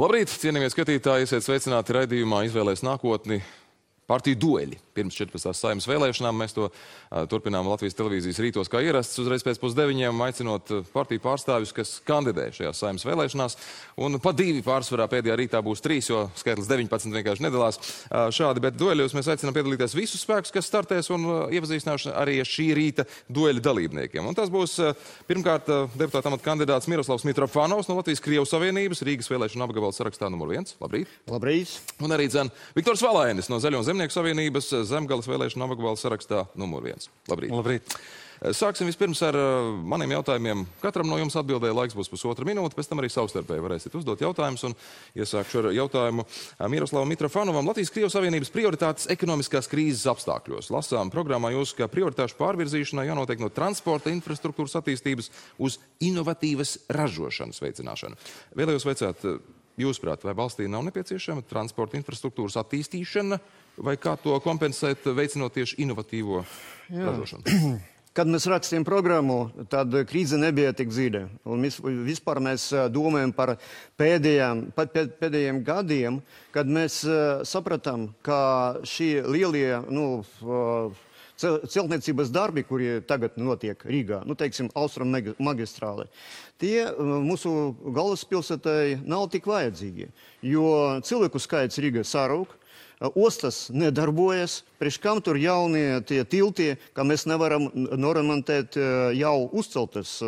Labrīt, cienījamie skatītāji, esiet sveicināti raidījumā Izvēlēs nākotni. Partiju dueļi. Pirms 14. Saeimas vēlēšanām mēs to turpinām Latvijas televīzijas rītos kā ierasts, uzreiz pēc 8:30, aicinot partiju pārstāvjus, kas kandidē šajās Saeimas vēlēšanās. Un pa 2 pārsvarā pēdējā rītā būs 3, jo skaitlis 19 vienkārši nedalās. Šādi, bet dueļos mēs aicinām piedalīties visus spēkus, kas startēs, un iepazīstināšu arī šī rīta dueļa dalībniekiem. Un tas būs pirmkārt deputāta amata kandidāts Miroslavs Mitrofanovs no Latvijas-Krievu Savienības, Rīgas vēlēšanu apgabala sarakstā numur 1. Labrīt. Labrīt. Un arī Viktors Valainis no Zaļo un Zemnieku Savienības Zemgales vēlēšanu apgabala sarakstā numur 1. Labrīt. Labrīt. Sāksim vispirms ar maniem jautājumiem. Katram no jums atbildēja, laiks būs pusotra minūte, pēc tam arī savstarpēji varēsiet uzdot jautājumus. Un iesākšu ar jautājumu Miroslavam Mitrofanovam. Latvijas-Krievu Savienības prioritātes ekonomiskās krīzes apstākļos. Lasām programmā jūs, ka prioritāšu pārvirzīšanai jānotiek no transporta infrastruktūras attīstības uz inovatīvas ražošanas veicināšanu. Vēlējos veicāt, jūsuprāt, vai valstī nav nepieciešama transporta infrastruktūras attīstīšana, vai kā to kompensēt, veicinot tieši inovatīvo ražošanu? Kad mēs rakstījām programmu, tad krīze nebija tik dziļa. Un vispār mēs domājam par pēdējiem gadiem, kad mēs sapratām, ka šī lielie celtniecības darbi, kuri tagad notiek Rīgā, teiksim, Austrum magistrāle, tie mūsu galvaspilsētai nav tik vajadzīgi, jo cilvēku skaits Rīgā sarūk, ostas nedarbojas, priekš kam tur jaunie tie tilti, ka mēs nevaram noremontēt jau uzceltas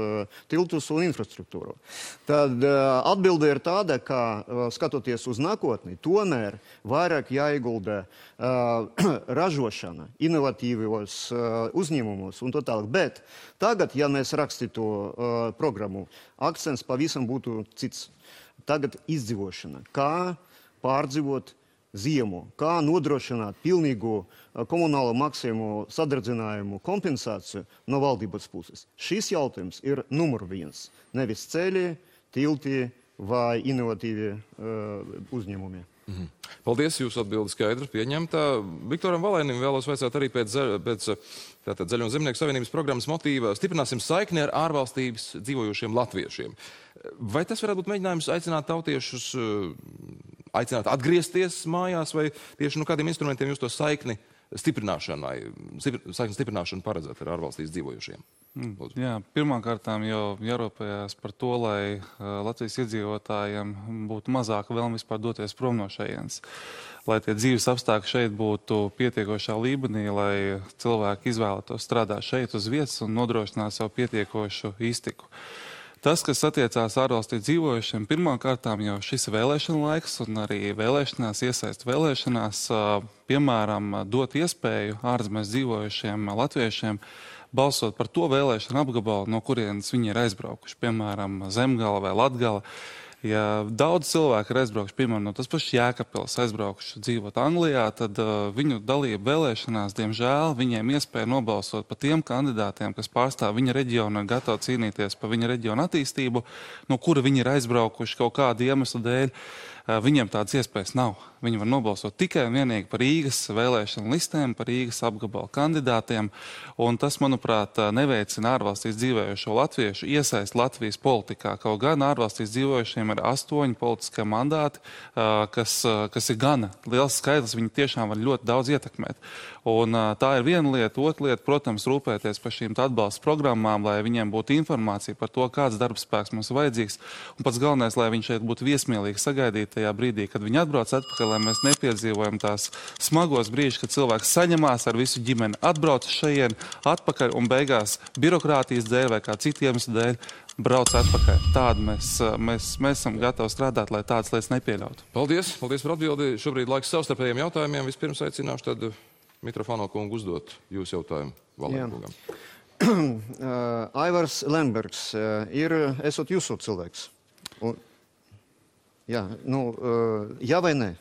tiltus un infrastruktūru. Tad atbilde ir tāda, ka skatoties uz nākotni, tomēr vairāk jāiegulda ražošana, inovatīvos uzņēmumos un tā tālāk. Bet tagad, ja mēs rakstītu programmu, akcents pavisam būtu cits. Tagad izdzīvošana. Kā pārdzīvot ziemu, kā nodrošināt pilnīgu komunālo maksājumu sadardzinājumu kompensāciju no valdības puses. Šis jautājums ir numur 1. Nevis ceļi, tilti vai inovatīvi uzņēmumi. Paldies, jūsu atbildi skaidra, pieņemta. Viktoram Valainim vēlos vaicāt arī pēc Zaļo un Zemnieku Savienības programmas motīva stiprināsim saikni ar ārvalstības dzīvojošiem latviešiem. Vai tas varētu būt mēģinājums aicināt tautiešus, aicināt atgriezties mājās, vai tieši kādiem instrumentiem jūs to saikni stiprināšanu paredzēt ar ārvalstīs dzīvojošiem? Jā, pirmkārtām jau jārūpējās par to, lai Latvijas iedzīvotājiem būtu mazāka vēlme vispār doties prom no šejienes. Lai tie dzīves apstākļi šeit būtu pietiekošā līmenī, lai cilvēki izvēlētos strādāt šeit uz vietas un nodrošināt savu pietiekošu iztiku. Tas, kas attiecās ārvalstī dzīvojušiem, pirmkārtām jau šis vēlēšana laiks un arī vēlēšanās, iesaist vēlēšanās, piemēram, dot iespēju ārzemēs dzīvojušiem latviešiem balsot par to vēlēšanu apgabalu, no kurienes viņi ir aizbraukuši, piemēram, Zemgala vai Latgala. Ja daudz cilvēku ir aizbraukuši, piemēram, no tas pašs Jēkabpils aizbraukuši dzīvot Anglijā, tad viņu dalība vēlēšanās, diemžēl, viņiem iespēja nobalsot par tiem kandidātiem, kas pārstāv viņa reģionu un gatavi cīnīties par viņa reģionu attīstību, no kura viņi ir aizbraukuši kaut kādu iemeslu dēļ. Viņiem tādas iespējas nav. Viņi var nobalsot tikai un vienīgi par Rīgas vēlēšanu listēm, par Rīgas apgabalu kandidātiem, un tas, manuprāt, neveicina ārvalstīs dzīvojošo latviešu iesaist Latvijas politikā. Kaut gan ārvalstīs dzīvojušiem ir 8 politiskie mandāti, kas ir gana liels skaitlis, viņi tiešām var ļoti daudz ietekmēt. Un tā ir viena lieta. Otra lieta, protams, rūpēties par šīm atbalsta programmām, lai viņiem būtu informācija par to, kāds darbspēks mums ir vajadzīgs, un pats galvenais, lai viņi šeit būtu viesmīlīgi sagaidīt tajā brīdī, kad viņi atbrauc atpakaļ, lai mēs nepiedzīvojam tās smagos brīžus, kad cilvēks saņemās ar visu ģimeni, atbrauc šajien atpakaļ un beigās birokrātijas dēļ vai kā citu iemeslu dēļ brauc atpakaļ. Tādu mēs esam gatavi strādāt, lai tādas lietas nepieļautu. Paldies par atbildi. Šobrīd laiks savstarpējiem jautājumiem. Vispirms aicināšu tad Mitrofano kungu uzdot jūsu jautājumu Valainkungam. Aivars Lembergs esot jūsu cilvēks. Jā, jā vai nē?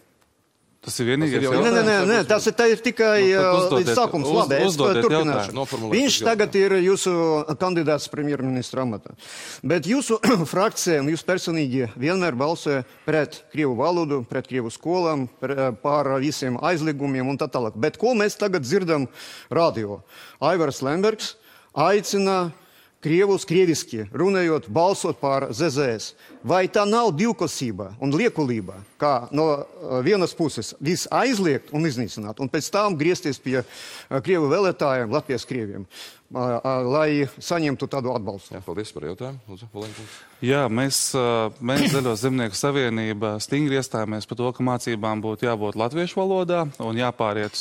Tas ir vienīgais jautājums? Nē, tas ir tikai līdz sākums. Labi, es turpināšu. Viņš tagad ir jūsu kandidāts premjerministra amatā. Bet jūsu frakcija un jūs personīgi vienmēr balsoja pret krievu valodu, pret krievu skolām, par visiem aizliegumiem un tā tālāk. Bet ko mēs tagad dzirdam radio? Aivars Lembergs aicina Krievus krieviski runājot, balsot par ZZS. Vai tā nav divkosība un liekulība, kā no vienas puses viss aizliegt un iznīcināt, un pēc tam griezties pie Krievu vēlētājiem, Latvijas krieviem, lai saņemtu tādu atbalstu? Jā, paldies par jautājumu. Lūdzu, Valēņkungs. Jā, mēs Zaļo zemnieku savienība stingri iestājāmies par to, ka mācībām būtu jābūt latviešu valodā un jāpāriet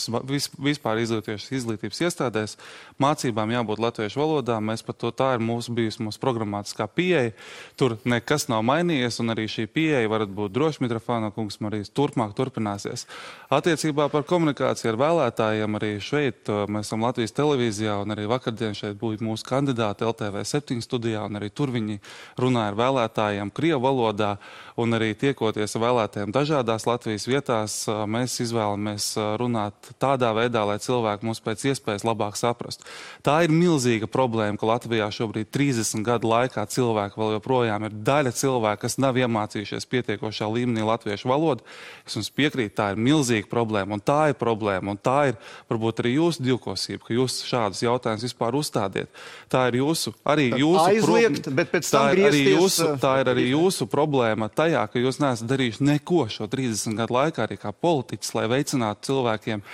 vispār izglītības iestādēs. Mācībām jābūt latviešu valodā. Mēs par to tā ir bijusi mūsu programmatiskā pieeja. Tur nekas nav mainījies, un arī šī pieeja varat būt droši, Mitrofāno kungs, arī turpmāk turpināsies. Attiecībā par komunikāciju ar vēlētājiem arī šeit mēs esam Latvijas televīzijā, un arī vakardien šeit būtu mūsu kandidāti LTV7 studijā, un arī tur viņi runāja ar vēlētājiem Krievu valodā, un arī tiekoties ar vēlētājiem dažādās Latvijas vietās, mēs izvēlamies runāt tādā veidā, lai cilvēki mūs pēc iespējas labāk saprastu. Tā ir milzīga problēma, ka Latvijā šobrīd 30 gadu laikā cilvēki vēl joprojām ir daļa cilvēku, kas nav iemācījušies pietiekošā līmenī latviešu valodu. Es jums piekrītu, tā ir milzīga problēma, un tā ir problēma, un tā ir varbūt arī jūsu divkosība, ka jūs šādus jautājumus vispār uzstādiet. Tā ir arī jūsu aizliegt, bet pēc tam griezties. Tā ir arī jūsu problēma tajā, ka jūs neesat darījuši neko šo 30 gadu laikā arī kā politiķis, lai veicinātu cilvēkiem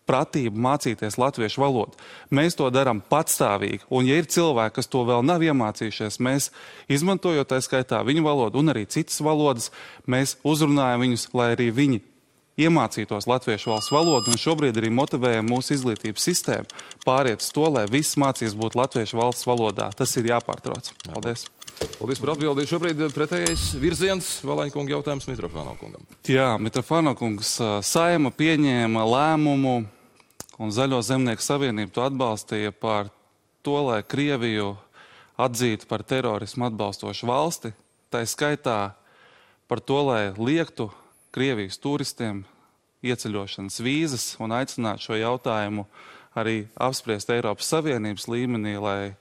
pratību mācīties latviešu valodu. Mēs to darām patstāvīgi, un ja ir cilvēki, kas to vēl nav iemācījušies, mēs, izmantojot tā skaitā viņu valodu un arī citas valodas, mēs uzrunājam viņus, lai arī viņi iemācītos latviešu valsts valodu, un šobrīd arī motivējam mūsu izglītības sistēmu pāriet uz to, lai viss mācības būtu latviešu valsts valodā. Tas ir jāpārtrauc. Paldies. Paldies par atbildi. Šobrīd pretējais virziens Valēņkunga jautājums Mitrofāno kungam. Jā, Mitrofāno kungs, Saeima pieņēma lēmumu, un Zaļo zemnieku savienību to atbalstīja par to, lai Krieviju atzītu par terorismu atbalstošu valsti. Tā skaitā par to, lai liektu Krievijas turistiem ieceļošanas vīzas un aicināt šo jautājumu arī apspriest Eiropas Savienības līmenī, lai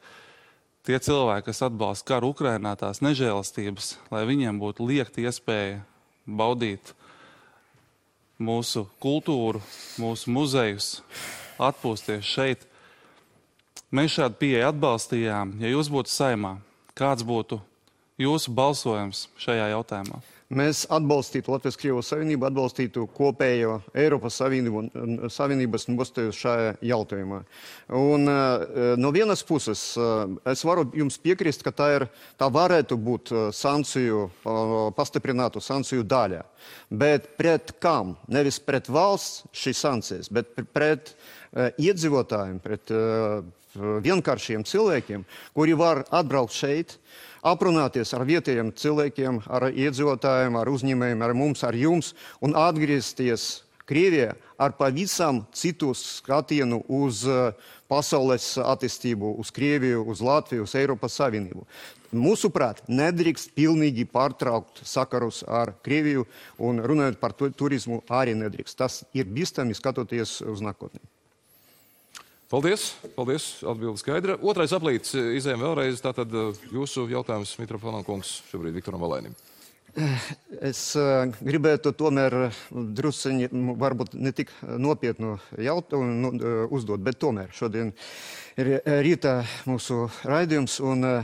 tie cilvēki, kas atbalsta karu Ukrainā, tās nežēlastības, lai viņiem būtu liekta iespēja baudīt mūsu kultūru, mūsu muzejus, atpūsties šeit. Mēs šādu pieeju atbalstījām. Ja jūs būtu Saeimā, kāds būtu jūsu balsojums šajā jautājumā? Mēs atbalstītu Latvijas Krievijas Savienību, atbalstītu kopējo Eiropas Savienības nostāju šajā jautājumā. Un no vienas puses es varu jums piekrist, ka tā varētu būt pastiprinātu sankciju daļa. Bet pret kam? Nevis pret valsts šīs sankcijas, bet pret iedzīvotājiem, pret vienkāršiem cilvēkiem, kuri var atbraukt šeit, aprunāties ar vietējiem cilvēkiem, ar iedzīvotājiem, ar uzņēmējiem, ar mums, ar jums, un atgriezties Krievijā ar pavisam citu skatienu uz pasaules attīstību, uz Krieviju, uz Latviju, uz Eiropas Savienību. Mūsuprāt, nedrīkst pilnīgi pārtraukt sakarus ar Krieviju, un runājot par turismu arī nedrīkst. Tas ir bīstami skatoties uz nākotni. Paldies, paldies, atbildi skaidra. Otrais aplīts izējām vēlreiz, tātad jūsu jautājums Mitrofāno kungs šobrīd Viktoram Valēnim. Es gribētu tomēr drusciņi, varbūt ne tik nopietnu jautājumu uzdot, bet tomēr šodien ir rīta mūsu raidījums, un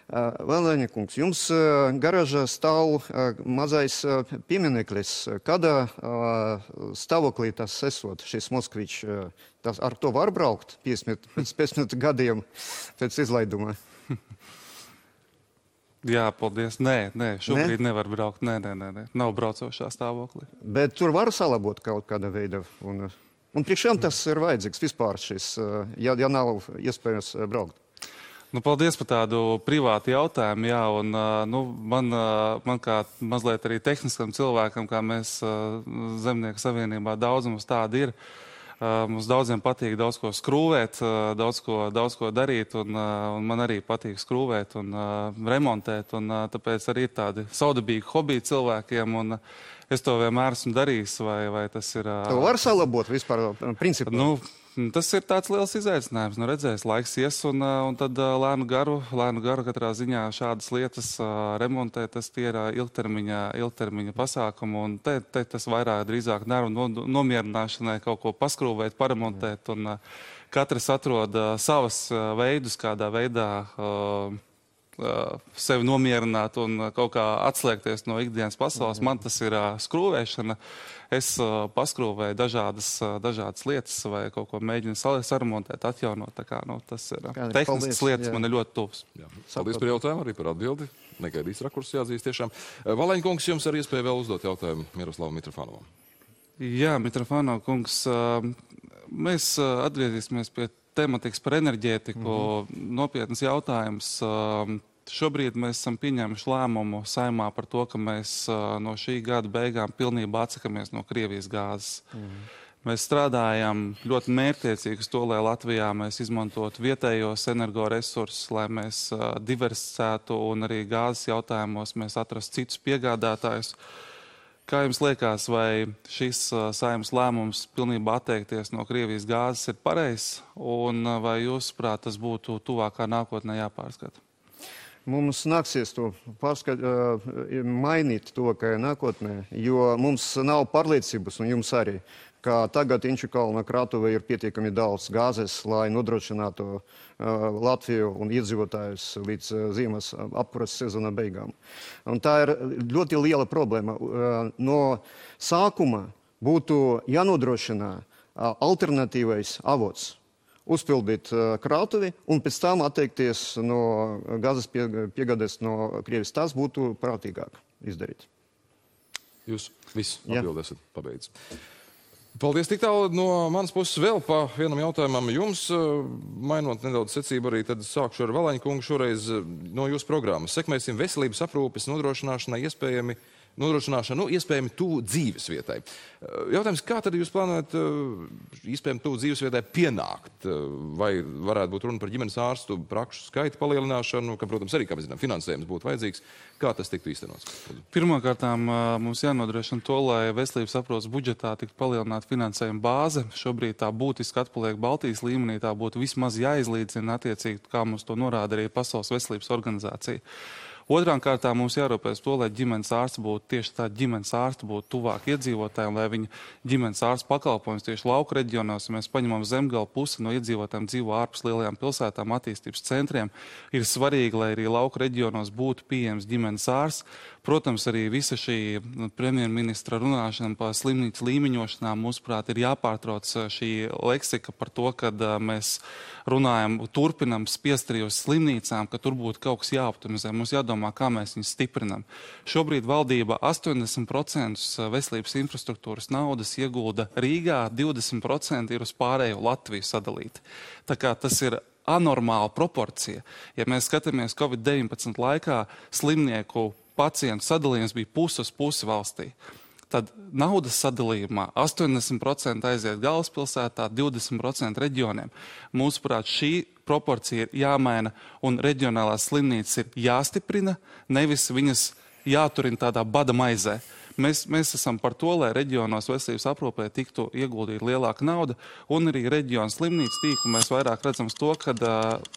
Valēņa kungs, jums garāžā stāv mazais piemineklis. Kādā stāvoklī tas esot, šis Moskvičs? Ar to var braukt pēc 15 gadiem pēc izlaiduma? Jā, paldies. Nē, šobrīd nevar braukt. Nē. Nav braucošā stāvoklī. Bet tur var salabot kaut kāda veida. Un priekšām tas ir vajadzīgs vispār šis, ja nav iespējams braukt. Paldies par tādu privātu jautājumu. Jā, un man kā mazliet arī tehniskam cilvēkam, kā mēs Zemnieku savienībā daudz mums tādi ir. Mums daudziem patīk daudz ko skrūvēt, daudz ko darīt, un man arī patīk skrūvēt un remontēt, un tāpēc arī ir tādi saudabīgi hobiji cilvēkiem, un es to vienmēr esmu darījis, vai tas ir... To var salabot vispār principā? Tas ir tāds liels izaicinājums. Redzēs, laiks ies, un tad lēnu garu katrā ziņā šādas lietas remontēt, tas tie ir ilgtermiņa pasākumi, un te tas vairāk drīzāk nervu nomierināšanai kaut ko paskrūvēt, paremontēt, un katrs atrod savas veidus, kādā veidā sevi nomierināt un kaut kā atslēgties no ikdienas pasaules. Man tas ir skrūvēšana. Es paskrūvēju dažādas lietas vai kaut ko mēģinu saremontēt, atjaunot. Tā kā, tas ir tehniskas lietas, man ir ļoti tuvs. Paldies par jautājumu, arī par atbildi. Negaidīs rakurs jāatzīst tiešām. Valaņkungs, jums arī iespēja vēl uzdot jautājumu Miroslavam Mitrofanovam. Jā, Mitrofanov kungs, mēs atgriezīsimies pie tematikas par enerģētiku. Nopietnas jautājums. Šobrīd mēs esam pieņēmuši lēmumu Saeimā par to, ka mēs no šī gada beigām pilnībā atsakamies no Krievijas gāzes. Mēs strādājam ļoti mērķtiecīgi uz to, lai Latvijā mēs izmantotu vietējos energoresursus, lai mēs diversificētu un arī gāzes jautājumos mēs atrastu citus piegādātājus. Kā jums liekas, vai šis Saeimas lēmums pilnībā atteikties no Krievijas gāzes ir pareizs, un vai jūsuprāt tas būtu tuvākā nākotnē jāpārskata? Mums nāksies to mainīt tuvākajā nākotnē, jo mums nav pārliecības, un jums arī, ka tagad Inčukalna krātuvē ir pietiekami daudz gāzes, lai nodrošinātu Latviju un iedzīvotājus līdz ziemas apkuras sezona beigām. Un tā ir ļoti liela problēma. No sākuma būtu jānodrošina alternatīvais avots, uzpildīt krātuvi un pēc tam atteikties no gāzes piegādes no Krievijas. Tas būtu prātīgāk izdarīt. Jūs visu atbildēsiet pabeidz. Paldies tik tālu no manas puses vēl pa vienam jautājumam jums. Mainot nedaudz secību arī, tad sākšu ar Valaņkungu šoreiz no jūsu programmas. Sekmēsim veselības aprūpes nodrošināšanu iespējami tuvu dzīves vietai. Jautājums, kā tad jūs plānojat iespējami tuvu dzīves vietai pienākt? Vai varētu būt runa par ģimenes ārstu prakšu skaita palielināšanu, ka, protams, arī, kā mēs zinām, finansējums būtu vajadzīgs? Kā tas tiktu īstenots? Pirmkārtām mums jānodrošina to, lai veselības aprūpes budžetā tiktu palielināta finansējuma bāze. Šobrīd tā būtiski atpaliek Baltijas līmenī, tā būtu vismaz jāizlīdzina attiecīgi, kā mums to norāda arī Pasaules veselības organizācija. Otrām kārtām mums jārūpēs to, lai ģimenes ārsts būtu tieši tā ģimenes ārsts būtu tuvāk iedzīvotājiem, lai viņa ģimenes ārsts pakalpojums tieši lauku reģionos, ja mēs paņemam Zemgala pusi no iedzīvotājiem dzīvo ārpus lielajām pilsētām, attīstības centriem, ir svarīgi, lai arī lauku reģionos būtu pieejams ģimenes ārsts. Protams, arī visa šī premjerministra runāšana par slimnīcu līmeņošanām, mūsuprāt, ir jāpārtrauc šī leksika par to, kad mēs runājam, turpinam spiest arī uz slimnīcām, ka tur būtu kaut kas jāoptimizē. Mums jādomā, kā mēs viņus stiprinam. Šobrīd valdība 80% veselības infrastruktūras naudas iegulda Rīgā, 20% ir uz pārējo Latviju sadalīti. Tā kā tas ir anormāla proporcija. Ja mēs skatāmies Covid-19 laikā, slimnieku pacientu sadalījums bija pusi uz pusi valstī. Tad naudas sadalījumā 80% aiziet galvaspilsētā, 20% reģioniem. Mūsuprāt, šī proporcija ir jāmaina un reģionālās slimnīcas ir jāstiprina, nevis viņas jāturina tādā bada maizē. Mēs esam par to, lai reģionos veselības aprūpē tiktu ieguldīta lielāka nauda, un arī reģionu slimnīcu tīklu mēs vairāk redzam to, ka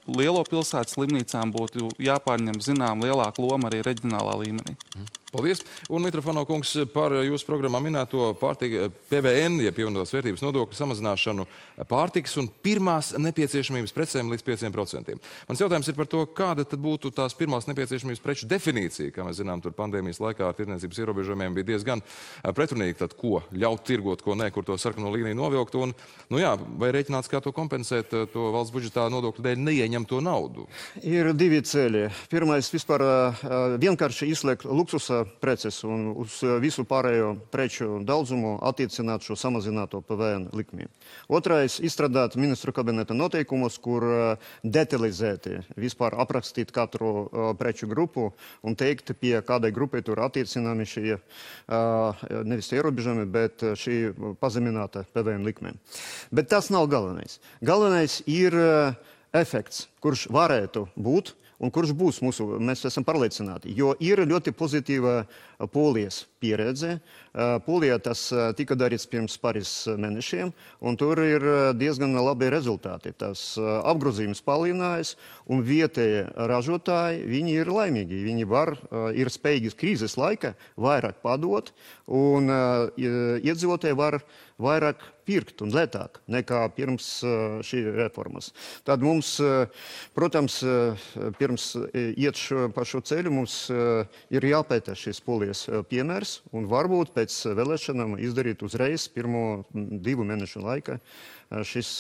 lielo pilsētu slimnīcām būtu jāpārņem zinām lielāka loma arī reģionālā līmenī. Paldies. Un Mitrofanov kungs par jūsu programmā minēto PVN, ja pievienotās vērtības nodokļu samazināšanu pārtikas un pirmās nepieciešamības precēm līdz 5%. Mans jautājums ir par to, kāda tad būtu tās pirmās nepieciešamības preču definīcija. Kā mēs zinām, tur pandēmijas laikā ar tirdzniecības ierobežojumiem bija diezgan pretrunīgi, tad ko ļaut tirgot, ko nē, kur to sarkano līniju novilkt. Un, vai rēķināts, kā to kompensēt, to valsts budžetā nodokļu dēļ neieņemto naudu? Ir divi ceļi. Pirmais vispār vienkārši izslēgt luksusa preces un uz visu pārējo preču daudzumu attiecināt šo samazināto PVN likmi. Otrais - izstrādāt ministru kabineta noteikumus, kur detalizēti vispār aprakstīt katru preču grupu un teikt, pie kādai grupai tur attiecināmi šie nevis ierobežojumi, bet šī pazemināta PVN likme. Bet tas nav galvenais. Galvenais ir efekts, kurš varētu būt un kurš būs mēs esam pārliecināti, jo ir ļoti pozitīva Polijas pieredze. Polijā tas tika darīts pirms pāris mēnešiem, un tur ir diezgan labi rezultāti. Tas apgrozījums palielinājās, un vietējie ražotāji, viņi ir laimīgi. Viņi ir spējīgi krīzes laika vairāk padot, un iedzīvotāji var vairāk pirkt un lētāk nekā pirms šī reformas. Tad mums, protams, pirms iet pa šo ceļu, mums ir jāpēta šis Polijas piemērs, un varbūt pēc vēlēšanām izdarīt uzreiz pirmo 2 mēnešu laikā šis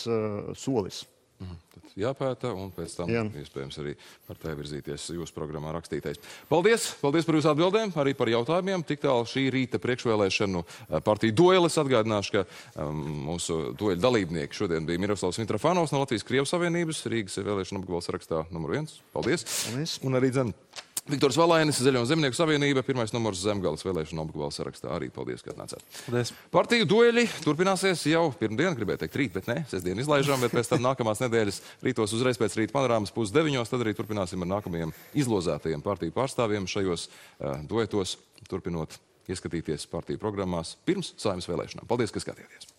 solis. Tad jāpēta, un pēc tam iespējams arī par tā virzīties jūsu programmā rakstītais. Paldies! Paldies par jūsu atbildēm, arī par jautājumiem. Tik tālu šī rīta priekšvēlēšanu partiju dueles. Atgādināšu, ka mūsu dueļu dalībnieki šodien bija Miroslavs Mitrofanovs no Latvijas-Krievijas Savienības, Rīgas vēlēšanu apgabala sarakstā numur 1. Paldies! Un arī Viktors Valainis, Zaļo un Zemnieku savienība, 1. numurs Zemgales vēlēšanu apgabala sarakstā. Arī paldies, ka atnācāt. Paldies. Partiju dueļi turpināsies jau pirmdien, gribēju teikt rīt, bet ne, sestdien izlaižām, bet pēc tam nākamās nedēļas rītos uzreiz pēc rīta panorāmas 8:30, tad arī turpināsim ar nākamajiem izlozētajiem partiju pārstāvjiem šajos duetos, turpinot ieskatīties partiju programmās pirms Saeimas vēlēšanām. Paldies, ka skatījāties!